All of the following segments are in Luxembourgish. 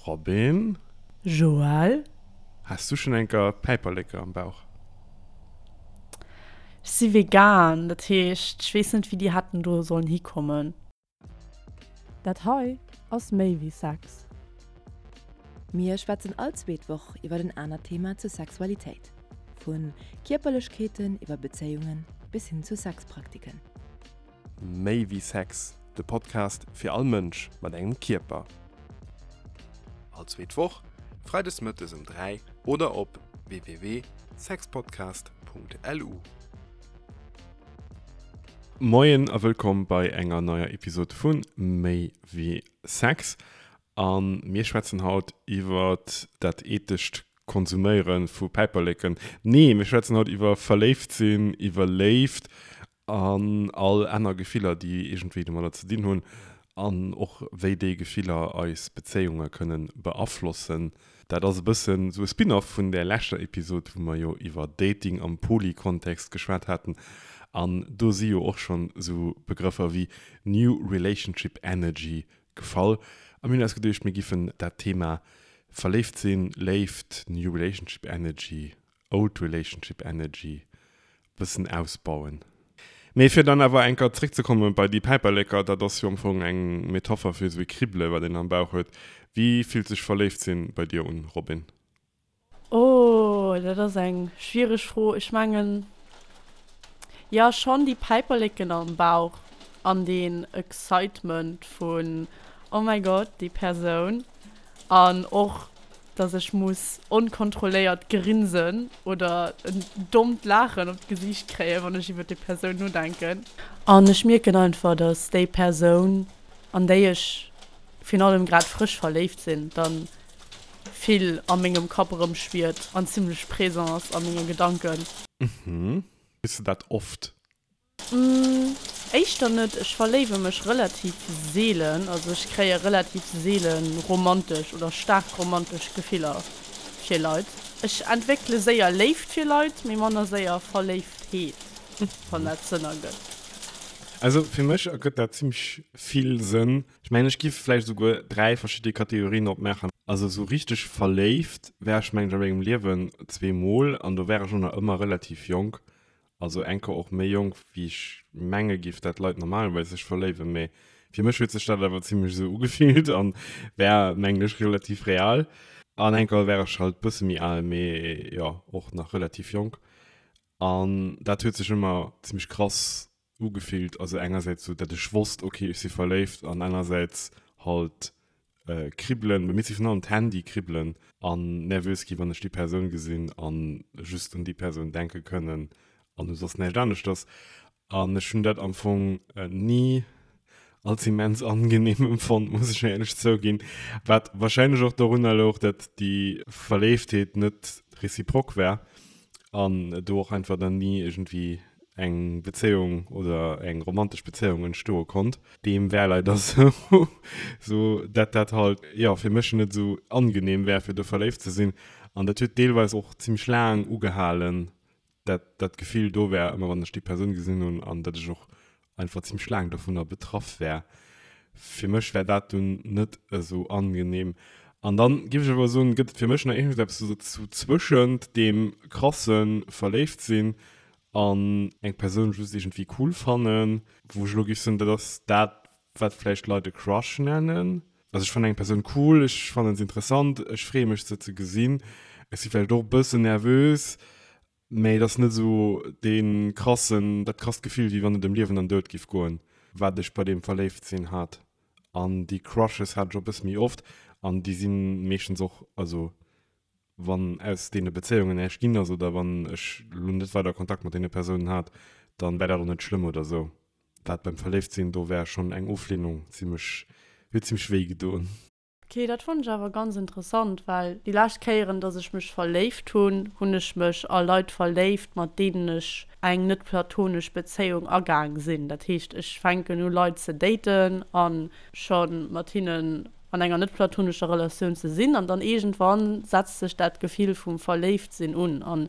Robin? Joël? Has du schon enker Päiperleke am Bauch? Ech si vegan, dat heescht, ech weess net, wéi déi hätten do sollen hikommen. Dat hei ass méi wéi Sex. Mir schwätzen all zweet Woch iwwer en anert Thema zur Sexualitéit. Vu Kierperlechkeeten iwwer Bezéiungen bis hin zu Sexpraktiken. Méi wéi Sex, de Podcast fir all Mënsch mat engem Kierper. All zweet Woch, freides mëttes um 3 oder op www.sexpodcast.lu. Moien a wëllkomm bei enger neier Episode vu Méi wéi Sex. A mir schwätzen haut iwwer dat ethescht Konsuméiere vu Päiperleken. Nee, mir schwätzen haut iwwer verléift sinn, iwwer Léift An all aner Gefiller, déi iergendwéi domadder ze dinn hunn. An och wéi déi Gefiller eis Bezéiunge kënne beaflossen. Dat ass e bëssen esou e Spin-off vun där leschter Episod, wou mer jo iwwer Dating am Poly-Kontext geschwat haten. An do si jo och schonn esou Begrëffer wéi New Relationship Energy gefall. A mir hunn eis geduecht, mir giffen dat Thema Verléift sinn, Léift, New Relationship Energy Old Relationship Energy bëssen ausbauen. Mee fir dann awer eng Keier zréckzekomme bei déi Päiperleker, dat ass jo am Fong eng Metapher fir esou ee Kribbele wat een am Bauch huet. Wéi fillt sech verléift sinn bei dir un, Robin? Oh, dat ass eng schwiereg Fro. Ech mengen, jo schonn déi Päiperleken am Bauch an deen Excitement vun oh mäi Gott, déi Persoun. An och, dass ech muss onkontrolléiert grinsen oder en dommt Laachen op d'Gesiicht kréien, wann ech iwwer déi Persoun nodenken. An ech mierken einfach, dass déi Persoun, an déi ech virun allem grad frësch verléift sinn, dann vill a mengem Kapp erëmschwiert an zimlech présent ass a menge Gedanken. Mhm. Hues de dat oft? Éischter net. Ech verléiwe mech relativ seelen, also ech kréie relativ seele romantesch oder staark romantesch Gefiller fir Leit. Ech entwéckele séier Léift fir Leit, mee manner séier Verléiftheet, wann dat Sënn ergëtt. Also fir mech ergëtt dat zimmlech vill Sënn. Ech mengen ech giff vläicht esouguer 3 verschidde Kategorien opmaachen. Also esou richteg verléift war ech mengen ech a mengem Liewen zweemol an do war ech och nach ëmmer relativ jonk. Also enker och méi jonk wéi ech menge giff dat Leit normalerweis sech verléiwen, mee fir mech huet sech dat awer zimlech esou ugefillt an war mengen ech relativ real. An enker war ech halt bësse méi al, mee jo och nach relativ jonk an dat huet sech ëmmer zimlech krass ugefillt. Also engersäits sou dat ech wosst ok ech si verléift an anersäits halt Kribbelen, bei mir si virun allem d'Hänn déi kribbelen an nervös gi wann ech déi Persoun gesinn an just un déi Persoun denke kënnen an u soss näischt aneschters. An ech hunn dat am Fong ni als immens angenehm empfonnt, muss ech éierlech zouginn, wat wahrscheinlech och dorunner louch, dat déi Verléiftheet net réciproque war an do och einfach dann ni iergendwéi eng Bezéiung oder eng romantesch Bezéiung entstoe konnt. Deem war leider sou, sou dat dat halt, jo, fir mech net sou angenehm war, fir do verléift ze sinn. An dat huet deelweis och zimmlech laang ugehalen, dat dat Gefill do war, ëmmer wann ech déi Persoun gesinn hunn, an dat ech och einfach zimmlech laang dovunner betraff war. Fir mech war dat dunn net esou angenehm. An dann géif ech awer soen, gëtt et fir mech nach iergendeppes sou zwëschent deem krasse Verléiftsinn an eng Persoun just iergendwéi cool fannen, wou ech elo géif soen, dat ass dat, wat vläicht Leit e Crush nennen. Also ech fannen eng Persoun cool, ech fannen se interessant, ech freeë mech se ze gesinn, ech si vläicht och e bëssen nervös, mä et ass net esou dee krassen, dat krasst Gefill, wéi wann et ëm Liewen an Doud géif goen, wat ech bei deem Verléiftsinn hat. An déi Crushes hat ech och e bësse méi oft an déi si meeschtens och, also wann aus deene Bezéiungen näischt ginn ass oder wann ech elo net weider Kontakt mat deene Persounen hat, dann wär dat och net schlëmm oder sou. Wat beim Verléiftsinn, do wär schonn eng Oflehnung zimmlech, huet zimmlech wéi gedoen. Ok, dat fannen ech awer ganz interessant, well déi lescht Kéieren, dass ech mech verléift hunn, hunn ech mech a Leit verléift, mat deenen ech eng net platonesch Bezéiung agaang sinn. Dat heescht, ech fänken u Leit ze daten a scho mat hinnen an enger net platonescher Relatioun ze sinn an dann iergendwann setzt sech dat Gefill vum Verléiftsinn un an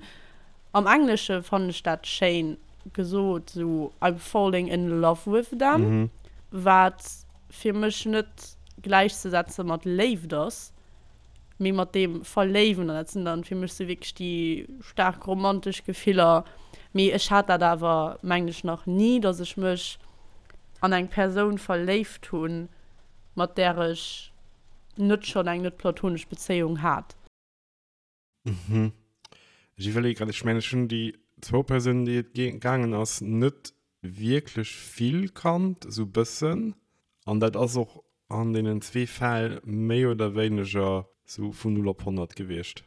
am Englesche fannen ech dat schéin gesot, sou I'm falling in love with them, wat fir mech net gläichzesetze mat Léift ass. Mee mat deem Verléiwen, an dat sinn dann fir mech sou wierklech déi staark romantesch Gefiller, mee ech hat dat awer mengen ech nach ni, dass ech mech an eng Persoun verléift hunn, mat där ech net schonn eng net platonesch Bezéiung hat. Mhm. Ech iwwerleeë grad, ech mengen ech hunn déi zwou Persounen déi et gaangen ass, net wierklech vill kannt, esou bëssen. An dat ass och an deenen zwee Fäll méi oder wéineger sou vun 0 op 100 gewiescht.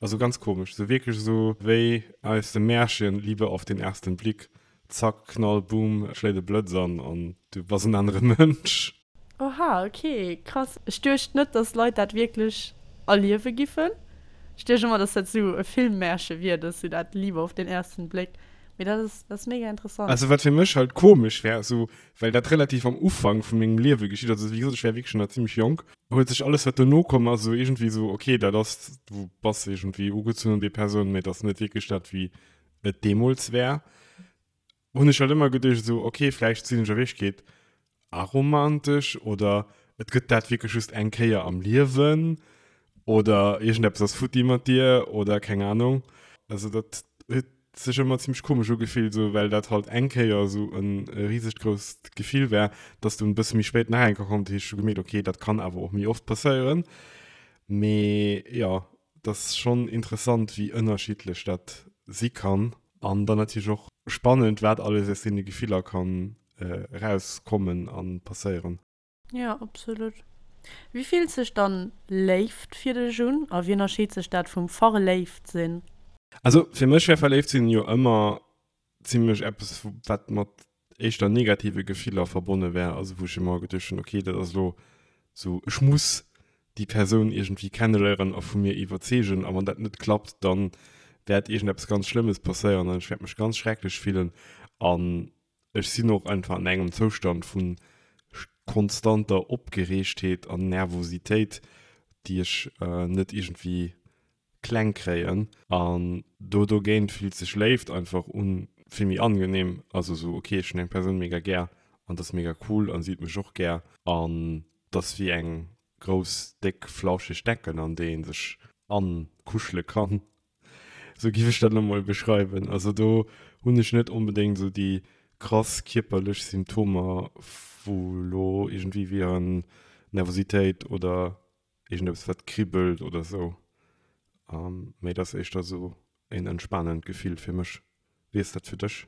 Also ganz komesch, sou wierklech esou wéi aus dem Märchen, Liebe auf den ersten Blick, zack, Knall, Boom, et schléit e Blëtz an an du bass en anere Mënsch. Oha, ok, krass. Ech duecht net, dass Leit dat wierklech erliewe giffen. Ech duecht ëmmer, dass dat sou e Filmmärche wier, dass sou dat Liebe auf den ersten Blick. Mee dat ass, dat ass mega interessant. Also wat fir mech halt komesch wär, sou well dat relativ am Ufank vu mengem Liewe geschitt ass, also wéi gesot, ech war wierklech nach zimmlech jonk, huet sech alles wat dono komm ass sou iergendwéi sou, ok, dat ass, du bass iergendwéi ugezunn un déi Persoun, mee et ass net wierklech dat wéi et deemools war. Hunn ech halt ëmmer geduecht esou, ok, vläicht sinn ech a Wierklechkeet aromantesch oder et gëtt dat wierklech just eng Kéier am Liewen oder iergendeppes ass futti mat dir oder keng Ahnung. Also dat huet sech ëmmer zimmlech komesch ugefillt, esou well dat halt eng Kéier esou e risegt grousst Gefill war, dass dunn e bësse méi spéit nach eng Kéier kommt, hu ech gemierkt, ok, dat kann awer och méi oft passéieren. Mee jo, et ass schonn interessant, wéi ënnerschiddlech dat si kann. An dann natierlech och spannend, wat alles aus deene Gefiller kann erauskommen a passéieren. Jo, absolut. Wéi fillt sech dann Léift fir dech un a wéi ënnerscheet sech dat vum verléift sinn? Also fir mech wär verléift sinn jo ëmmer zimlech eppes wat mat éischter negative Gefiller verbonne wär, also wou ech ëmmer geduecht hunn, okay dat ass elo sou ech muss déi Persoun iergendwéi kenneléieren a vu mir iwwerzeegen a wann dat net klappt, dann wäert iergendeppes ganz Schlëmmes passéieren an ech wäert mech ganz schrecklech fillen an Ech sinn och einfach an engem Zoustand vu konstanter Opgereegtheet an Nervositéit, déi ech net iergendwéi kleng kréien. An do dogéint fillt sech Léift einfach un vill méi angenehm. Also sou, ok, ech hunn eng Persoun mega gär an dat ass mega cool an si huet mech och gär an dat ass wéi eng grouss, déck, flauscheg Decken an déi ee sech ankuschele kann. Sou giff ech dat elo mol beschreiwen. Also do hunn ech net onbedéngt sou déi krass kierperlech Symptomer wou elo iergendwéi wieren Nervositéit oder iergendeppes wat kribbelt oder sou. Mee et ass éischter sou een entspanend Gefill fir mech. Wéi ass dat fir dech?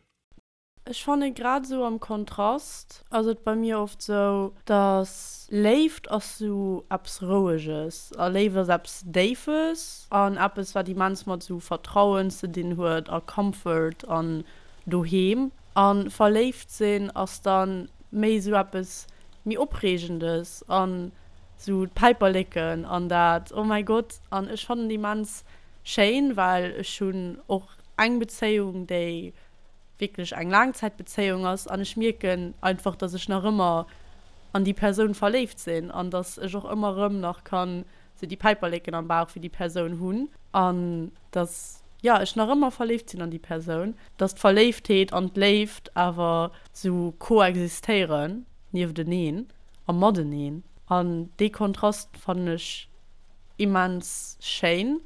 Ech fanne grad esou am Kontrast ass et bei mir oft sou, dass Léift ass sou eppes Roueges a Léift ass eppes Déifes an eppes wat immens mat sou Vertrauen ze dinn huet a Comfort an Doheem. A verléift sinn ass dann méi sou eppes méi Opreegendes an sou d'Päiperleken an dat oh mäi Gott. An ech fannen et immens schéin, well ech hunn och eng Bezéiung déi wierklech eng Laangzäitbezéiung ass an ech mierken einfach, dass ech nach ëmmer an déi Persoun verléift sinn an dass ech och ëmmer erëm nach kann sou déi Päiperleken am Bauch fir déi Persoun hunn an dass, jo, ech nach ëmmer verléift sinn an déi Persoun, dass d'Verléiftheet an d'Léift awer sou koexistéieren niefteneen a mateneen an dee Kontrast fannen ech immens schéin.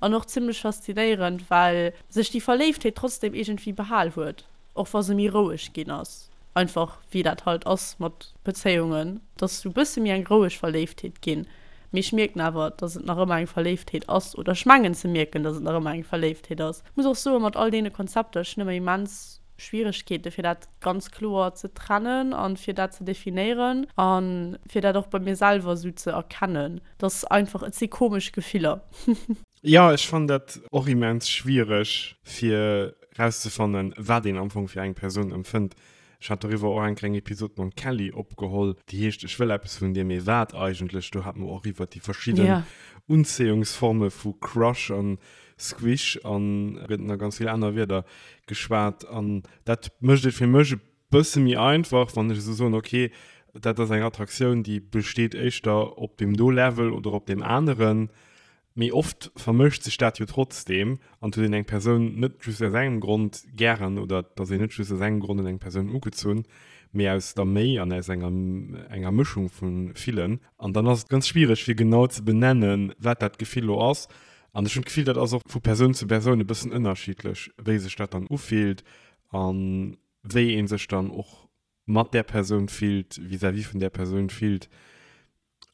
An och zimlech faszinéierend, well sech déi Verléiftheet trotzdem iergendwéi behal huet, och wa se méi roueg ginn ass. Einfach wéi dat halt ass mat Bezéiungen, dass sou bësse méi eng roueg Verléiftheet ginn. Mee ech mierken awer, dass et nach ëmmer eng Verléiftheet ass, oder ech mengen ze mierken, dass et nach ëmmer eng Verléiftheet ass. Muss och soen, mat all deene Konzepter, ech hunn ëmmer immens Schwieregkeete fir dat ganz kloer ze trennen an fir dat ze definéieren an fir dat och bei mir selwer sou ze erkennen. Dass einfach, et si komesch Gefiller. Jo, ech fannen dat och immens schwiereg fir rauszefannen, wat een am Fong fir eng Persoun empfënnt. Ech hat doriwwer och eng kleng Episod mam Kelly opgeholl, déi heescht Ech wëll eppes vun dir, mee wat eigentlech? Do hate mer och iwwert déi verschidden Unzéiungsforme vu Crush an Squish an gëtt nach ganz vill aner Wierder geschwat. An dat mécht et fir mech e bësse méi einfach, wann ech esou soen, okay, dat ass eng Attraktioun, déi besteet éischter op deem do Level oder op deem aneren. Mee oft vermëscht sech dat jo trotzdeem an et huet een eng Persoun net just aus engem Grond gären oder et ass een net just aus engem Grond un eng Persoun ugezunn. mee aus der méi an aus enger enger Mëschung vu villen. An dann ass et ganz schwiereg fir genau ze benennen, wat dat Gefill lo ass. An ech hunn d'Gefill, dat ass och vu Persoun zu Persoun e bëssen ënnerschiddlech, wéi sech dat dann ufillt a wéi ee sech dann och mat där Persoun fillt, vis-à-vis vun där Persoun fillt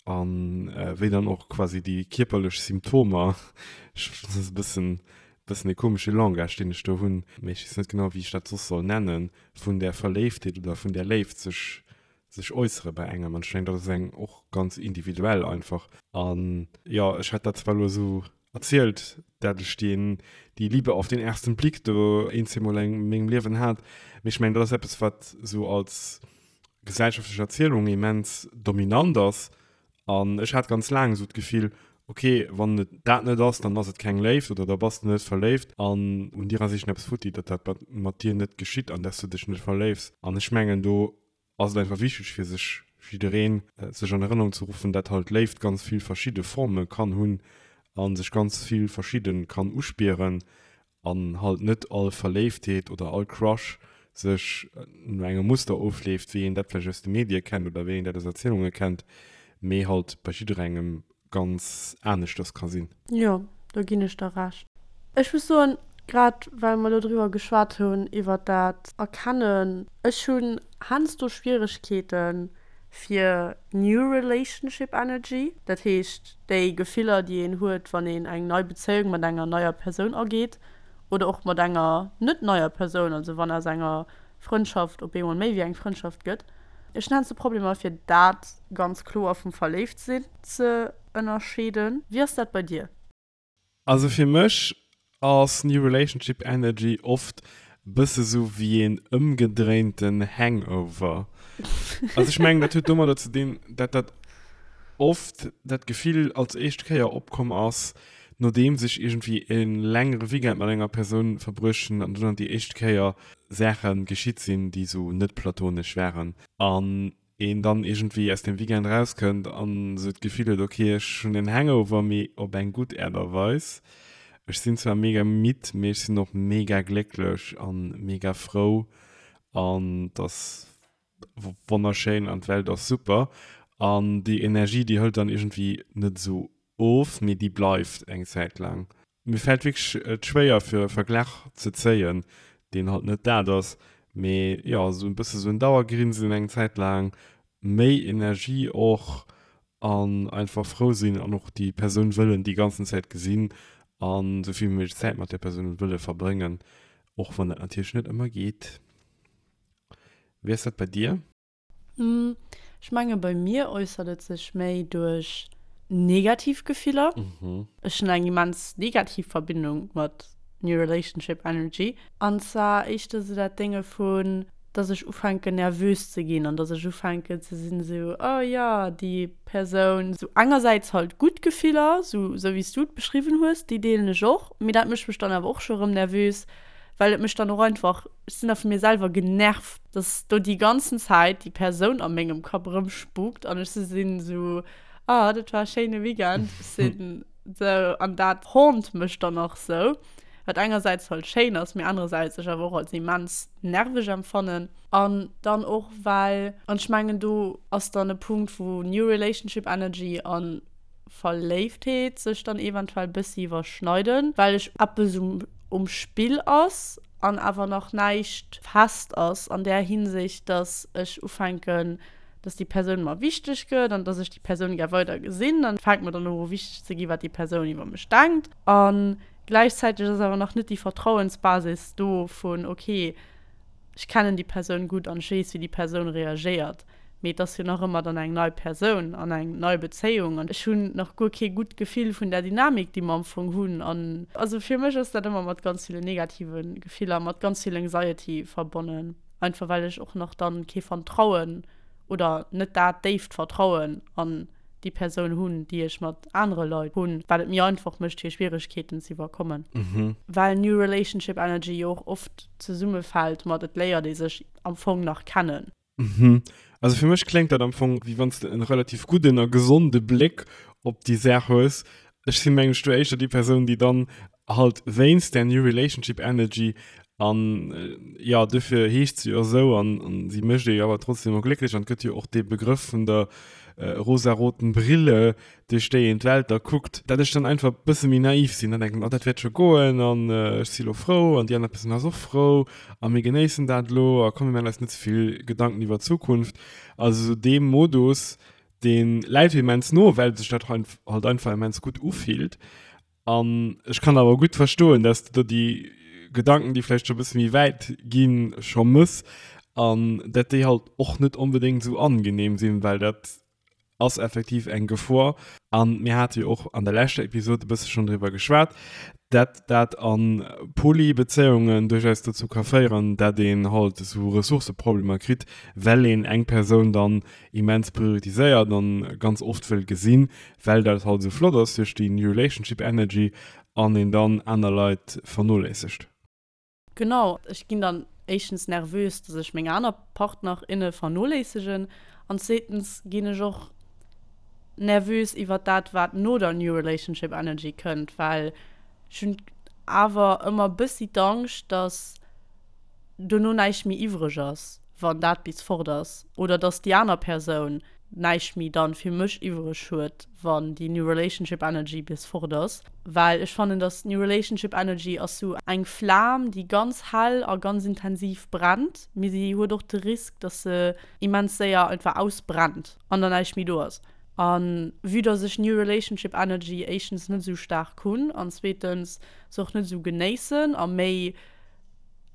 an wéi dann och quasi déi kierperlech Symptomer, ech, dat ass e bëssen, bëssen e komesche Langage, deen ech do hunn, mee ech weess net genau, wéi ech dat soss soll nennen, vun där Verléiftheet oder vun där Léift sech, sech äussere bei engem. An ech mengen, dat ass eng och ganz individuell einfach. An jo, ech hat dat zwar elo esou erzielt, dat ech deen, die Liebe auf den ersten Blick do een, zweemol a mengem Liewen hat, mee ech mengen, dat ass eppes, wat esou als gesellschaftlech Erzielung immens dominant ass. An ech hat ganz laang esou d'Gefill, okay, wann et dat net ass, dann ass et keng Léift oder da bass de net verléift an un dir ass iergendeppes futti, datt dat mat dir net geschitt an dass du dech net verléifs. An ech mengen, do ass et einfach wichteg fir sech jiddereen sech an Erënnerung ze ruffen, dat halt Léift ganz vill verschidde Forme kann hunn a sech ganz vill verschidde kann uspieren an halt net all Verléiftheet oder all Crush sech no engem Muster ofleeft, wéi een dat vläicht aus de Medie kennt oder wéi een dat aus Erzielunge kennt, mee halt bei jidderengem ganz aneschters ka sinn. Jo, do ginn ech der Recht. Ech muss soen, grad well mer elo driwwer geschwat hunn, iwwert dat Erkennen, ech hunn heiansdo Schwieregkeete fir New Relationship Energy, dat heescht déi Gefiller, déi een huet, wann een eng nei Bezéiung mat enger neier Persoun ageet oder och mat enger net neier Persoun, also wann aus enger Frëndschaft op eemol méi wéi eng Frëndschaft gëtt. Ech hunn heiansdo Problemer fir dat ganz kloer vum Verléiftsinn ze ënnerscheeden. Wéi ass dat bei dir? Also fir mech ass New Relationship Energy oft bësse sou wéi een ëmgedréinten Hangover. Also ech mengen dat huet domadder ze dinn, dat dat oft dat Gefill als éischt Kéier opkomm ass, nodeems ech iergendwéi e längere Weekend mat enger Persoun verbruecht hunn an dunn déi éischt Kéier Saache geschitt sinn, déi sou net platonesch waren an een dann iergendwéi aus dem Weekend rauskënnt an sou d'Gefill huet, ok, ech hunn en Hangover, mee op eng gutt Aart a Weis. Ech sinn zwar mega midd, mee ech sinn och mega glécklech an mega frou an et ass wonnerschéin an d'Welt ass super. An déi Energie, déi hëlt dann iergendwéi net esou of, mee déi bleift eng Zäit laang. Mir fält wierklech et schwéier fir e Verglach ze zéien, deen halt net dat ass, mee jo, esou e bësse sou en Dauergrinsen eng Zäit laang, méi Energie och an einfach frou sinn an och déi Persoun wëllen déi ganzen Zäit gesinn an esou vill wéi méiglech Zäit mat där Persoun wëlle verbréngen, och wann dat natierlech net ëmmer geet. Wéi ass dat bei dir? Ech menge bei mir äussert et sech méi duerch negativ Gefiller. Ech hunn eng immens negativ Verbindung mat New Relationship Energy. An zwar éischter sou dat Dénge vun, dass ech ufänken nervös ze ginn an dass ech ufänken ze sinn esou, oh jo, déi Persoun. Sou engersäits halt gutt Gefiller, sou sou wéi s du et beschriwwen hues, déi deelen ech och, mee dat mécht mech dann awer och scho rëm nervös, well et mech dann och einfach, ech sinn da vu mir selwer genervt, dass do déi ganzen Zäit déi Persoun a mengem Kapp erëmspukt an ech sinn esou, ah, dat war e schéine Weekend, ech sinn esou, an dat haunt mech dann och esou, wat engersäits halt schéin ass, mee anerersäits ech awer och als immens nerveg empfannen. An dann och well, an ech mengen do ass dann e Punkt, wou New Relationship Energy an Verléiftheet sech dann eventuell bëssi iwwerschneiden, well ech eppes um um Spill ass an awer nach näischt fest ass an där Hinsicht, dass ech ufänken, dass déi Persoun mer wichteg gëtt an dass ech déi Persoun gär weider gesinn. An et fänkt mer dann och u wichteg ze gi wat déi Persoun iwwer mech denkt. A gläichzäiteg ass awer nach net déi Vertrauensbasis do vun, okay, ech kennen déi Persoun gutt an ech weess, wéi déi Persoun reagéiert. Mee et ass jo nach ëmmer dann eng nei Persoun an eng nei Bezéiung an ech hunn nach guer kee gutt Gefill vun där Dynamik, déi mer am Fong hunn. An also fir mech ass dat ëmmer mat ganz ville negative Gefiller, mat ganz vill Anxiety verbonnen, einfach well ech och nach dann kee Vertrauen oder net dat déift Vertrauen an déi Persoun hunn, déi ech mat anere Leit hunn, wat et méi einfach mécht fir Schwieregkeeten ze iwwerkommen. Well New Relationship Energy jo och oft zesummefält mat et léiert ee sech am Fong nach kennen. Mhm. Also fir mech kléngt dat am Fong, wéi wann s de en relativ gudden a gesonde Bléck op déi Saach hues. Ech sinn, mengen ech, do éischter déi Persoun, déi dann halt wéinst där New Relationship Energy. An jo, dofir heescht se jo esou an si mécht ee jo awer trotzdem och glécklech. An et gëtt jo och dee Begrëff vun der rosaroten Brille, duerch déi een d'Welt da kuckt, dat ech dann einfach e bësse méi naiv sinn an denken, oh dat wäert scho goen an ech si lo frou an déi aner Persoun ass och frou a mir genéissen dat elo a komm mir maachen eis net ze vill Gedanken iwwer d'Zukunft. Also esou dee Modus, dee läit mir immens no, well sech dat halt einfach immens gutt ufillt. An ech kann awer gutt verstoen, dass de do déi Gedanken, déi vläicht scho e bësse méi wäit ginn, scho mëss an dat déi halt och net onbedéngt esou angenehm sinn, well dat ass effektiv eng Gefor. An mir hate jo och an der leschter Episod e bësse schonn driwwer geschwat, dat dat a Poly-Bezéiungen duerchaus dozou ka féieren, dat een halt esou Ressourcëproblemer kritt, well een eng Persoun dann immens prioritiséiert an ganz oft wëll gesinn, well dat halt esou flott ass duerch déi New Relationship Energy an een dann aner Leit vernoléissegt. Genau, ech ginn dann éischtens nervös, dass ech meng aner Partner, inne vernoléissegen an zweetens ginn ech och nervös iwwert dat, wat no der New Relationship Energy kënnt, well ech hunn awer ëmmer bëssi d'Angscht, dass dono näischt méi iwwreg ass, wann dat bis fort ass, oder dass déi aner Persoun näischt méi dann fir mech iwwreg huet, wann déi New Relationship Energy bis fort ass. Well ech fannen, dass New Relationship Energy ass sou eng Flam, déi ganz hell a ganz intensiv brennt, mee si huet och de Risk, dass se immens séier einfach ausbrennt an dann näischt méi do ass. A vue dass ech New Relationship Energy éischtens net esou staark hunn an zweetens se och net esou genéissen a méi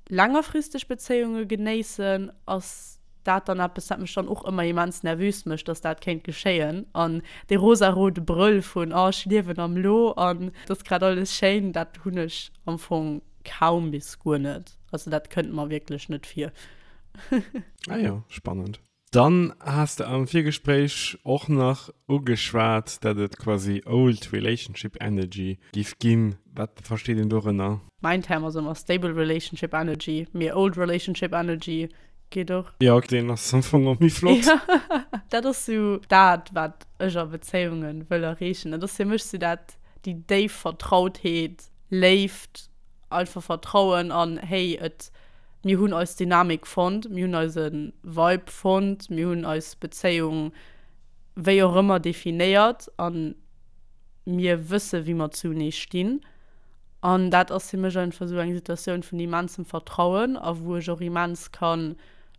längerfristeg Bezéiunge genéissen, ass dat dann eppes, wat mech dann och ëmmer immens nervös mécht, dass dat kéint geschéien. An dee rosarode Brëll vun oh ech liewen am Lo an et ass grad alles schéin, dat hunn ech am Fong kaum bis guer net. Also dat kënnt mer wierklech net vir. Ah jo, spannend. Dann has de am Virgespréich och nach ugeschwat, dat et quasi old relationship energy giff ginn. Wat versteet een dorënner? Mäin Term ass ëmmer stable relationship energy, mee old relationship energy geet och. Jo, deen ass am Fong och méi flott. Jo, dat ass sou dat, wat ech a Bezéiunge wëll erreechen. Dat ass fir mech sou dat, déi déif Vertrautheet, Léift, einfach Vertrauen an hey, et Mir hunn eis Dynamik fonnt, mir hunn eise Vibe fonnt, mir hunn eis Bezéiung wéi och ëmmer definéiert a mir wësse wéi mer zunee stinn. An dat ass fir mech einfach esou eng Situatioun vun immensem Vertrauen a wou ech och immens ka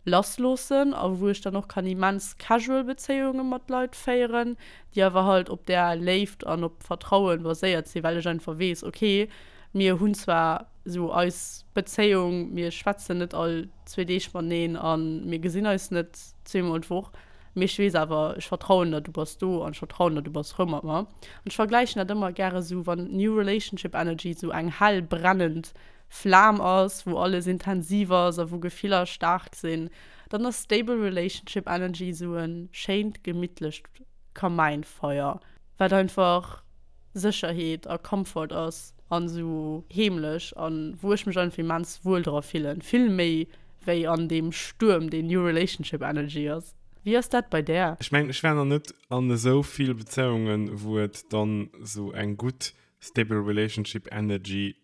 lassloossen a wou ech dann och kann immens casual Bezéiunge mat Leit féieren, déi awer halt op där Léift an op Vertrauen baséiert sinn, well ech einfach weess, okay, Mir hunn zwar esou eis Bezéiung, mir schwätzen net all zwee Deeg mateneen a mir gesinn eis net zweemol d'Woch, mee ech weess awer, ech vertrauen der, du bass do an ech vertrauen der, du bass frou mat mer. An ech vergläichen dat ëmmer gäre sou, wann New Relationship Energy sou eng hell brennend Flam ass, wou alles intensiv ass a wou Gefiller staark sinn, dann ass Stable Relationship Energy sou e schéint gemittlecht Kamäinfeier, wat einfach Sécherheet a Comfort ass an esou heemlech an wou ech mech einfach immens wuel dra fillen, vill méi wéi an deem Stuerm deen New Relationship Energy ass. Wéi ass dat bei där? Ech mengen ech war nach net an esou vill Bezéiungen wou et dann esou eng gutt stable relationship energy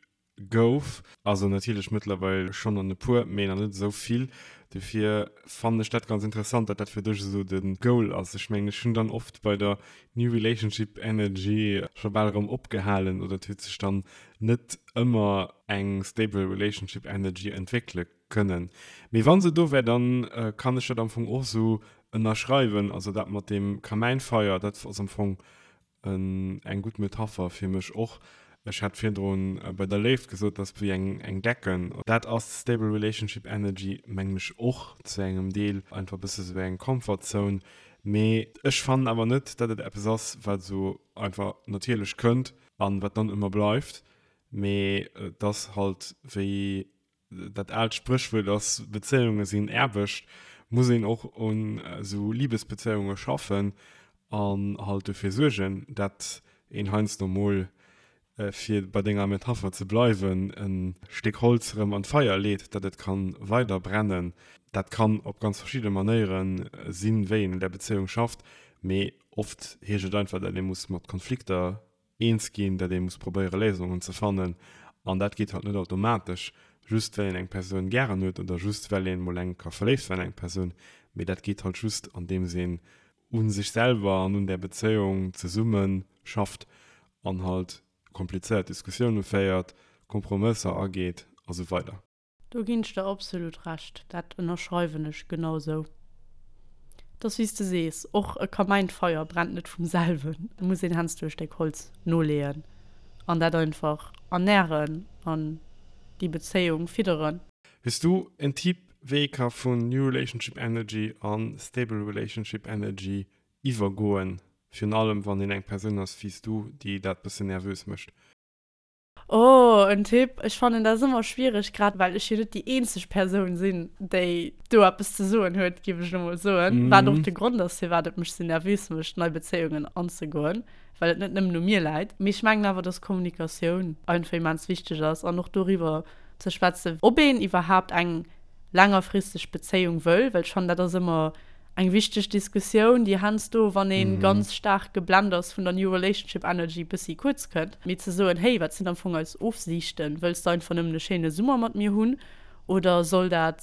Gouf. Also natierlech mëttlerweil schonn an e puer, mee nach net esou vill. Dofir fannen ech dat ganz interessant, dat dat fir dech esou de Goal ass. Ech mengen, ech hunn dann oft bei der New Relationship Energy scho bal erëm opgehalen oder et huet sech dann net ëmmer eng stable Relationship Energy entwéckele kënnen. Mee wa se do wär, dann kann ech dat am Fong och esou ënnerschreiwen. Also dat mat deem Kamäinfeier, dat ass am Fong Eng gutt Metapher fir mech och. Ech hat virdrun bei der Léift gesot, dass wéi eng Decken. Dat ass Stable Relationship Energy mengen ech och zu engem Deel einfach e bësse sou eng Comfort Zone. Mee ech fannen awer net, dat et eppes ass, wat esou einfach natierlech kënnt an wat dann ëmmer bleift. Mee et ass halt wéi dat aalt Spréchwuert ass, Bezéiunge sinn Aarbecht, muss een och un esou Libesbezéiunge schaffen an halt dofir suergen, dat een heiansdo mol, fir bei denger Metapher ze bleiwen, e Stéck Holz erëm an d'Feier leet, dat et kann weider brennen. Dat kann op ganz verschidde Manéiere sinn, wéi een un där Bezéiung schafft, mee oft heescht et einfach, dat ee muss mat Konflikter eens ginn, datt ee muss probéiere Léisungen ze fannen an dat geet halt net automatesch. just well een eng Persoun gären huet oder just well een mol eng Kéier verléift war an eng Persoun, mee dat geet halt just andeems een u sech selwer an un där Bezéiung zesumme schafft an halt komplizéiert Diskussioune féiert, Kompromësser ageet a sou weider. Do ginn ech der absolut Recht, dat ënnerschreiwen ech genau sou. Et ass wéi s de sees, och e Kamäinfeier brennt net vum selwen, et muss een heiansdo e Stéck Holz noleeën an dat einfach ernären an déi Bezéiung fidderen. Hues du en Typ wéi ee ka vun New Relationship Energy an Stable Relationship Energy iwwergoen, virun allem wann een eng Persoun ass wéi s du, déi dat bëssen nervös mécht? Oh, en Tipp? Ech fannen dat ass ëmmer schwiereg, grad well ech jo net déi eenzeg Persoun sinn, déi do eppes ze soen huet, géif ech elo mol soen. Wat och de Grond ass, firwat et mech sou nervös mécht, nei Bezéiungen anzegoen, well et net nëmmen u mir läit. Mee ech mengen awer, dass Kommunikatioun einfach immens wichteg ass an och doriwwer ze schwätzen, ob een iwwerhaapt eng längerfristeg Bezéiung wëll, well ech fannen, dat ass ëmmer eng wichteg Diskussioun, déi heiansdo, wann ee ganz staark geblend ass vun der New Relationship Energy, bëssi kuerz kënnt. Mee ze soen, hey, wat sinn am Fong eis Ofsiichten? Wëlls de einfach nëmmen e schéine Summer mat mir hunn oder soll dat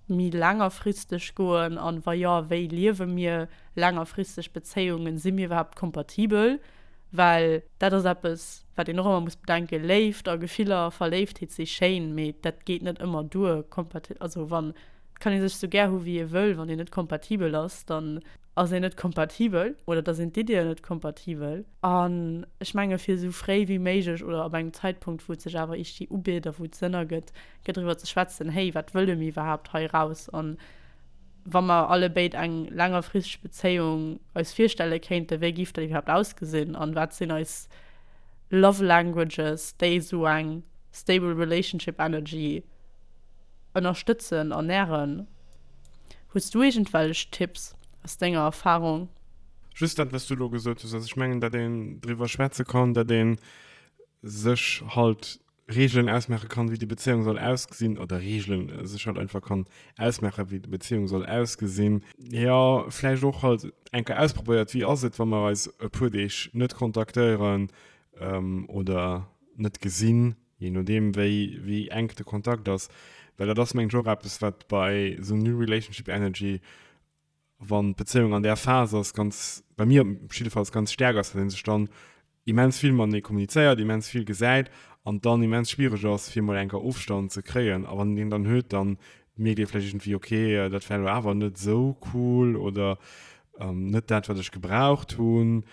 méi längerfristeg goen? An wa jo, wéi liewe mir längerfristeg Bezéiungen? Si mir iwwerhaapt kompatibel? Well dat ass eppes, wat een och ëmmer muss bedenken, Léift a Gefiller a Verléiftheet si schéin, mee dat geet net ëmmer duer. Also wann Et kann ee sech sou gär hu wéi ee wëll, wann een net kompatibel ass, dann ass een net kompatibel oder da sinn d'Iddien net kompatibel. An ech menge fir esou fréi wéi méiglech oder ab engem Zäitpunkt, wou et sech awer iergdwi ubitt a wou et Sënn ergëtt, gëtt driwwer ze schwätzen, hey, wat wëlle mir iwwerhaapt hei eraus? An wa mer allebéid eng längerfristeg Bezéiung eis virstelle kéinten, wéi géif dat iwwerhaapt ausgesinn an wat sinn eis Love Languages, déi esou eng stable relationship energy ënnerstëtzen an nähren. Hues du iergendwellech Tipps aus denger Erfahrung? Just dat, wat s du elo gesot hues. Also ech mengen, datt een driwwer schwätze kann, datt ee sech halt Reegelen ausmaache kann, wéi déi Bezéiung soll ausgesinn, oder Reegelen sech halt einfach kann ausmaachen, wéi déi Bezéiung soll ausgesinn. Jo, vläicht och halt eng Kéier ausprobéiert, wéi ass et, wa mer eis e puer Deeg net kontaktéieren oder net gesinn. Jee nodeem wéi wéi enk de Kontakt ass, well dat ass mengen ech och eppes wat bei esou New Relationship Energy, wann d'Bezéiung an där Phas ass, ganz, bei mir op jiddefalls ganz staark ass, datt ee sech dann immens vill matenee kommunizéiert, immens vill gesäit an dann immens schwiereg ass fir mol eng Kéier Ofstand ze kréien. A wann een deen dann huet, dann mierkt ee vläicht iergendwéi, okay, dat war elo awer net esou cool oder net dat wat ech gebraucht hunn.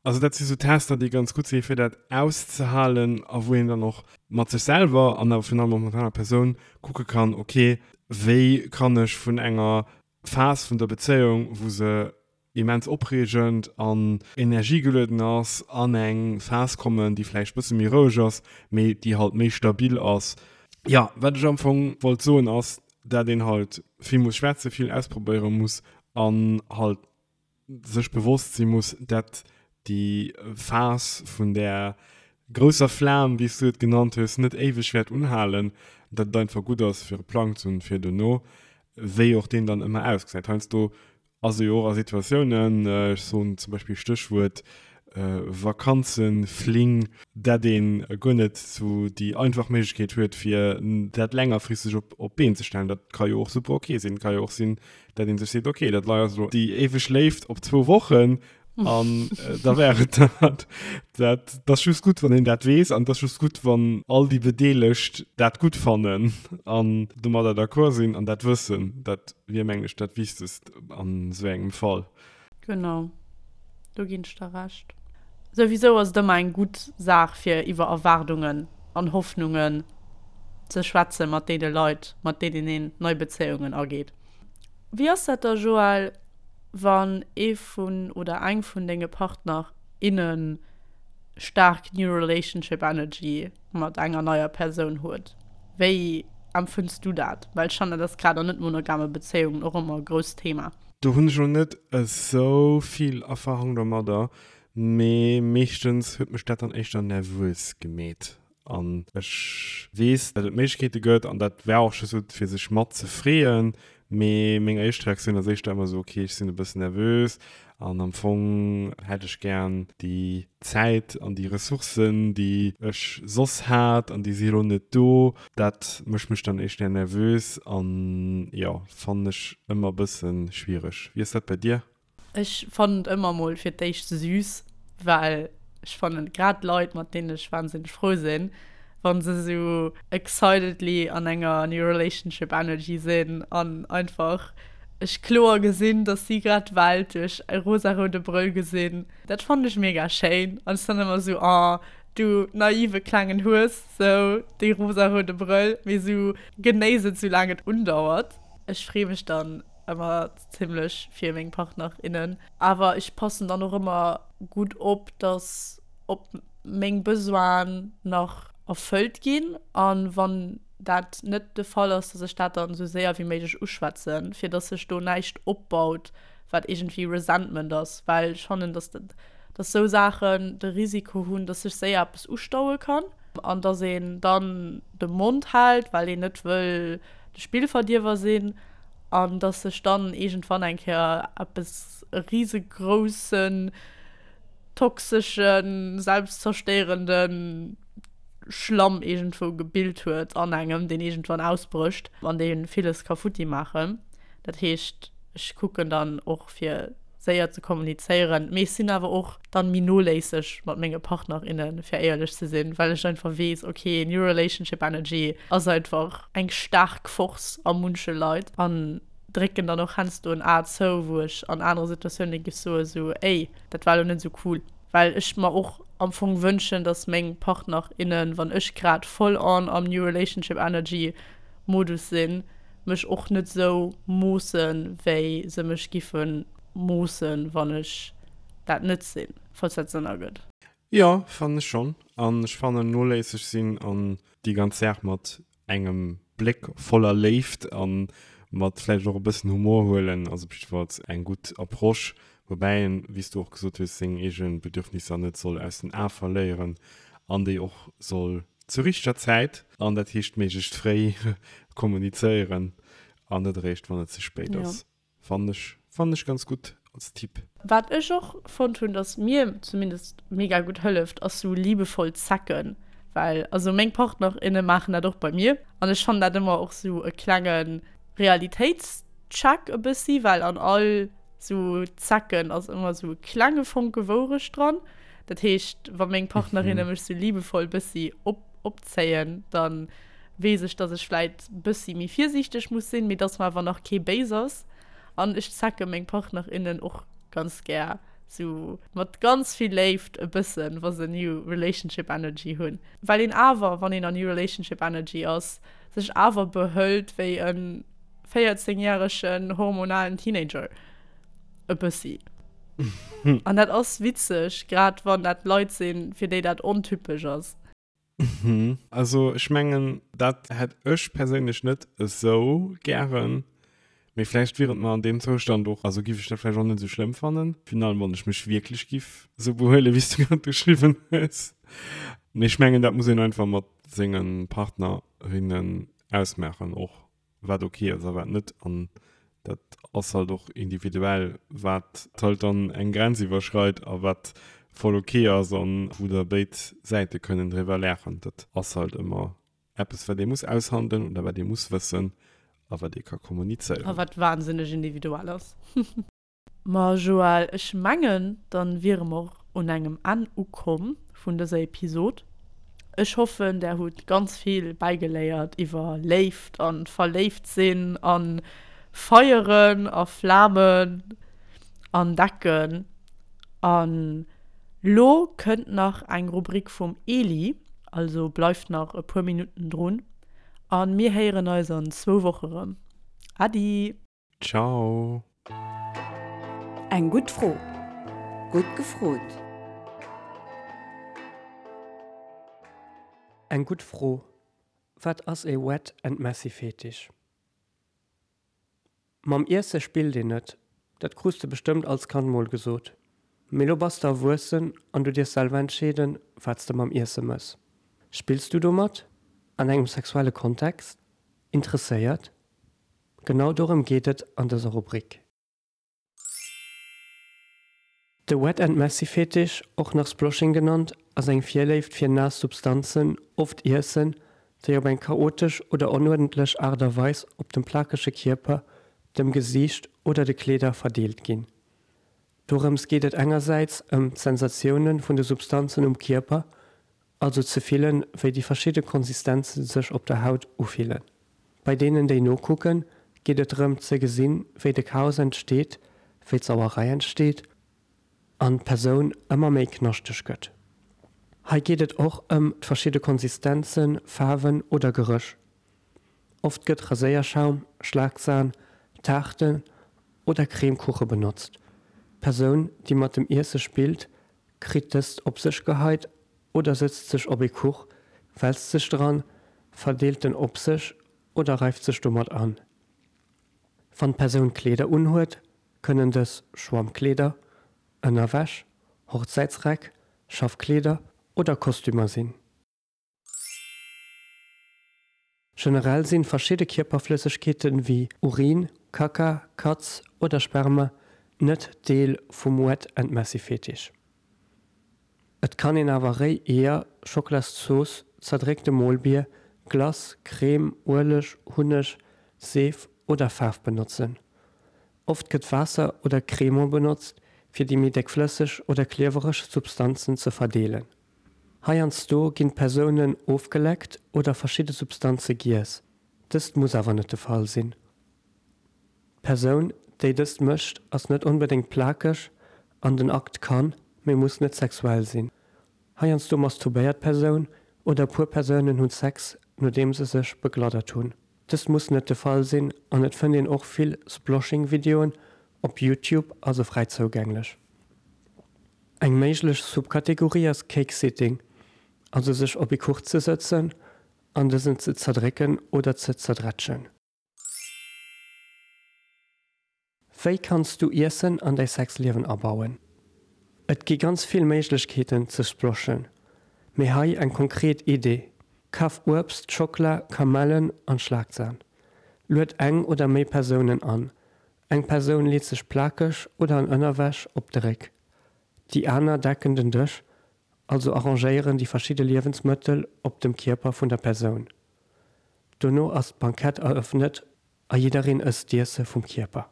Also dat si sou Tester, déi ganz gutt si fir dat auszehalen a wou een dann och mat sech selwer an awer virun allem och mat der anerer Persoun kucke kann, okay, wéi kann ech vun enger Phas vun der Bezéiung, wou se immens opreegend an energiegelueden ass, an eng Phas kommen, déi vläicht bësse méi roueg ass, mee déi halt méi stabil ass. Jo, wat ech am Fong wollt soen ass, dat een halt vill muss schwätzen, vill ausprobéiere muss an halt sech bewosst si muss, dat déi Phas vun där grousser Flam, wéi s du et genannt hues, net éiweg wäert unhalen, dat et einfach gutt ass, fir e Plang ze hunn fir dono, wéi och deen dann ëmmer ausgesäit. Heiansdo ass e jo och a Situatiounen, ech soen zum Beispill Stéchwuert Vakanzenfling, dat ee guer net sou déi einfach Méiglechkeet huet, fir dat längerfristeg op d'Been ze stellen. Dat ka jo och super ok sinn. Et ka jo och sinn, dat een sech seet, okay, dat lei ass elo déi éiweg Léift op zwou Wochen an äh, da wär et dat. Dat dat ass just gutt, wann een dat weess an dat ass just gutt, wann all déi Bedeelegt dat gutt fannen an domadder d'accord sinn an dat wëssen. Dat wier, mengen ech, dat Wichtegst an esou engem Fall. Genau, do ginn ech der Recht. Souwisou ass et ëmmer eng gutt Saach fir iwwer Erwaardungen an Hoffnungen ze schwätze mat deene Leit, mat deenen een nei Bezéiungen ageet. Wéi ass dat da Joël, wann ee vun oder eng vun denge Partner, innen staark New Relationship Energy mat enger neier Persoun huet? Wéi empfënns du dat? Well ech fannen, dat ass grad an net monogame Bezéiungen och ëmmer e grousst Thema. Do hunn ech elo net esou vill Erfahrung domadder, mee meeschtens huet mech dat dann éischter nervös gemeet. An ech weess, datt et Méiglechkeete gëtt, an dat war och just esou fir sech mat ze freeën, mee meng éischt Reaktioun ass éischter ëmmer esou, ok, ech sinn e bëssen nervös. An am Fong hätt ech gären déi Zäit an déi Ressourcen, déi ech soss hat, an déi si elo net do. Dat mécht mech dann éischter nervös an jo, fannen ech ëmmer e bësse schwiereg. Wéi ass dat bei dir? Ech fannen et ëmmer mol fir d'éischt süß, well ech fannen grad Leit, mat deenen ech wahnsinneg frou sinn, wa se sou excitedly an enger new relationship energy sinn an einfach ech kloer gesinn, dass si grad d'Welt duerch e rosaroude Brëll gesinn. Dat fannen ech mega schéin an ech sinn ëmmer sou, oh du naive klengen Hues, sou dee rosaroude Brëll, mee sou genéiss et soulaang et undauert. Ech free mech dann ëmmer zimlech fir meng Partner, innen, awer ech passen dann och ëmmer gutt op, dass op meng Besoinen nach erfëllt ginn an wann dat net de Fall ass, dass ech dat dann esou séier wéi méiglech uschwätzen, fir dass sech do näischt opbaut, wat iergendwéi Resentment ass, well ech fannen, dass dat, dass esou Saachen de Risiko hunn, dass sech séier eppes ustaue kann an dass een dann de Mond hält, well een net wëll de Spillverdierwer sinn an dass sech dann iergendwann eng Kéier eppes e risegroussen toxeschen, selbstzerstéierenden Schlamm iergendwou gebilt huet an engem, deen iergendwann ausbrécht an dee villes ka futti maachen. Dat heescht, ech kucken dann och fir séier ze kommunizéieren, mee ech sinn awer och dann méi noléisseg mat menge Partner, innen, fir éierlech ze sinn, well ech einfach weess, okay, New Relationship Energy ass einfach eng staark Force a munche Leit an drécken dann och heiansdo en A zou, wou ech an anere Situatioune géif soe sou, ey, dat war elo net esou cool. Well ech mer och am Fong wënschen, dass meng Partner, innen, wann ech grad full on am New Relationship Energy Modus sinn, mech och net esou moossen, wéi se mech giffe moossen, wann ech dat net sinn, falls dat Sënn ergëtt. Jo, fannen ech schonn. An ech fannen, noléisseg sinn an déi ganz Saach mat engem Bléck voller Léift a mat vläicht och e bëssen Humor huelen, ass op jiddefalls eng gutt Approche, woubäi een, wéi s du och gesot hues, seng eege Bedürfnisser net soll aus den Ae verléieren an déi och soll zur richteger Zäit, an dat heescht méiglechst fréi, kommunizéieren an net eréischt, wann et ze spéit ass. Fannen ech, fannen ech ganz gutt als Tipp. Wat ech och fonnt hunn, dass mir zumindest mega gutt hëlleft, ass sou liebevoll zecken, well also meng Partner, inne maachen dat och bei mir an ech fannen dat ëmmer och sou e klenge Realitéitscheck e bëssi, well an all sou Zecken ass ëmmer sou e klenge Fonke Wourecht dran. Dat heescht, wa meng Partnerinne mech sou liebevoll bëssi op opzéien, dann weess ech, dass ech vläit bëssi méi virsiichteg muss sinn, mee dass mer awer nach kee béis ass. An ech zecke meng Partnerinnen och ganz gär sou mat ganz vill Léift e bëssen, wa se New Relationship Energy hunn. Well een awer, wann een a New Relationship Energy ass, sech awer behëlt wéi e 14 järegen hormonalen Teenager. E bëssi. An dat ass witzeg, grad wann dat Leit sinn, fir déi dat ontypesch ass. Also ech mengen, dat hätt ech perséinlech net esou gären, mee vläicht wier et mer an deem Zoustand och, also giff ech dat vläicht och net esou schlëmm fannen, finalement, wann ech mech wierklech giff esou behuelen, wéi s du grad beschriwwen hues. Mee ech mengen, dat muss een einfach mat senge Partnerinnen ausmaachen och. wat ok ass a wat net an dat ass halt och individuell, wat halt dann eng Grenz iwwerschreit a wat voll ok ass an wou da béid Säite kënnen driwwer laachen. Dat ass halt ëmmer eppes wat ee muss aushandelen oder wat ee muss wëssen a wat ee ka kommunizéieren. A wat wahnsinneg individuell ass. Ma Joël, ech mengen, dann wiere mer och un engem Enn ukomm vun dëser Episod. Ech hoffen, där hutt ganz vill bäigeléiert iwwer Léift an verléift sinn an Feieren a Flamen an Decken. An lo kënnt nach eng Rubrik vum Eli, also bleift nach e puer Minutten drun an mir héieren eis an zwou Woche rëm. Äddi! Ciao. Eng gutt Fro. Gutt gefrot. Eng gutt Fro, Wat ass ee Wet and Messy Fetisch? Mam Iesse spillt een net, dat krus de bestëmmt als Kand mol gesot. Mee lo bass de erwuessen an du dierfs selwer entscheeden, wat s de mam Iesse mëss. Spills du domat? An engem sexuelle Kontext? Interesséiert? Genau dorëm geet et an dëser Rubrik. De Wet and Messy Fetisch, och nach Sploshing genannt, ass eng Virléift fir naass Substanzen, oft Iessen, déi op eng chaotesch oder onuerdentlech Aart a Weis op dem plakege Kierper, dem Gesiicht oder de Kleeder verdeelt ginn. Dorëms geet et engersäits ëm d'Sensatioune vun de Substanzen um Kierper, also ze fillen, wéi déi verschidde Konsistenze sech op der Haut ufillen. Bei deenen, déi nokucken, geet et drëm ze gesinn, wéi de Chaos entsteet, wéi d'Sauerei entsteet an d'Persoun ëmmer méi knaschteg gëtt. Hei geet et och ëm d'verschidde Konsistenzen, Faarwen oder Geréch. Oft gëtt Raséierschaum, Schlagsan, Taarten oder Cremekuche benotzt. D'Persoun, déi mat dem Iesse spillt, kritt dëst op sech geheit oder sëtzt sech op ee Kuch, wälzt sech dran, verdeelt en op sech oder reift sech domat an. Wann d'Persoun Kleeder unhuet, kënnen dës Schwammkleeder, Ënnerwäsch, Hochzäitsräck, Schaffkleeder oder Kostümer sinn. Generell sinn verschidde Kierperflëssegkeeten wéi Urin, Kacka, Katz oder Sperma net Deel vum Wet and Messy Fetisch. Et kann een awer réi Eeër, Schocklaszooss, zerdréckte Molbier, Glace, Crème, Ueleg, Hunneg, Seef oder Faarf benotzen. Oft gëtt Waasser oder Cremant benotzt fir déi méi déckflësseg oder kliewereg Substanzen ze verdeelen. Heiansdo ginn d'Persounen ofgeleckt oder verschidde Substanze giess, dëst muss awer net de Fall sinn. D'Persoun, déi dëst mécht, ass net onbedéngt plakeg an den Akt kann, mee muss net sexuell sinn. Heiansdo masturbéiert d'Persoun oder e puer Persounen hunn Sex, nodeem se sech begladdert hunn. Dëst muss net de Fall sinn an et fënnt een och vill Sploshing-Videoen op Youtube, also fräi zougänglech. Eng méiglech Subkategorie ass Cake Sitting, also sech op ee Kuch ze sëtzen an dësen ze zerdrécken oder ze zerdrätschen. Wéi kanns du Iessen an däi Sexliewen abauen? Et gi ganz vill Méiglechkeeten ze sploshen, mee hei eng konkret Idee, Kaf Uebst, Schockla, Kamellen an Schlagsan. Lued eng oder méi Persounen an. Eng Persoun leet sech plakeg oder an Ënnerwäsch op de Réck. Déi aner decken den Dësch, also arrangéieren déi verschidde Liewensmëttel op dem Kierper vun der Persoun. Dono ass d'Bankett erëffnet a jiddereen ësst d'Iesse vum Kierper.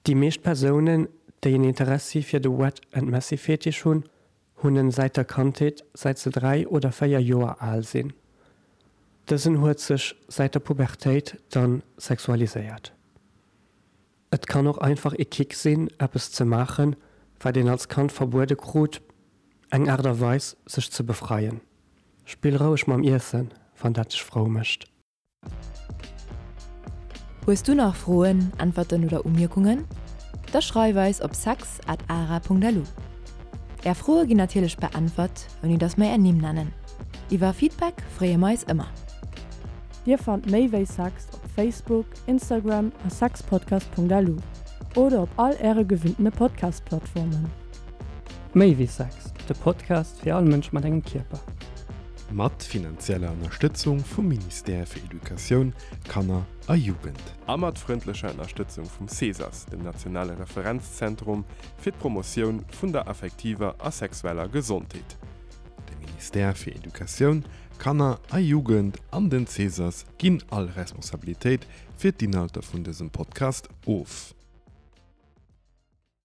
Déi meescht Persounen, déi en Interessi fir de Wet and Messy Fetisch hunn, hunn en säit der Kandheet, säit se 3 oder 4 Joer al sinn. Dësen huet sech säit der Pubertéit dann sexualiséiert. Et kann och einfach ee Kick sinn, eppes ze maachen, wat een als Kand verbuede krut, eng Aart a Weis, sech ze befreien. Spill roueg mam Iessen, wann dat dech frou mécht. Hues du nach Froen, Äntwerten oder Umierkungen? Da schreif eis op sex at ara.lu. Är Froe ginn natierlech beäntwert, ouni dass mer är Nimm nennen. Iwwer Feedback freeë mer eis ëmmer. Dir fannt méi wéi Sex op Facebook, Instagram a sexpodcast.lu oder op all äre gewinntene Podcast-Plattformen. Méi wéi Sex, de Podcast fir all Mënsch mat engem Kierper. Mat finanzieller Ënnerstëtzung vum Ministère fir Educatioun, Kanner a Jugend. A mat frëndlecher Ënnerstëtzung vum CESAS, dem nationale Referenzzentrum fir d'Promotioun vun der affektiver a sexueller Gesondheet. De Ministère fir Educatioun, Kanner a Jugend an den CESAS ginn all Responsabilitéit fir d'Inhalter vun dësem Podcast of.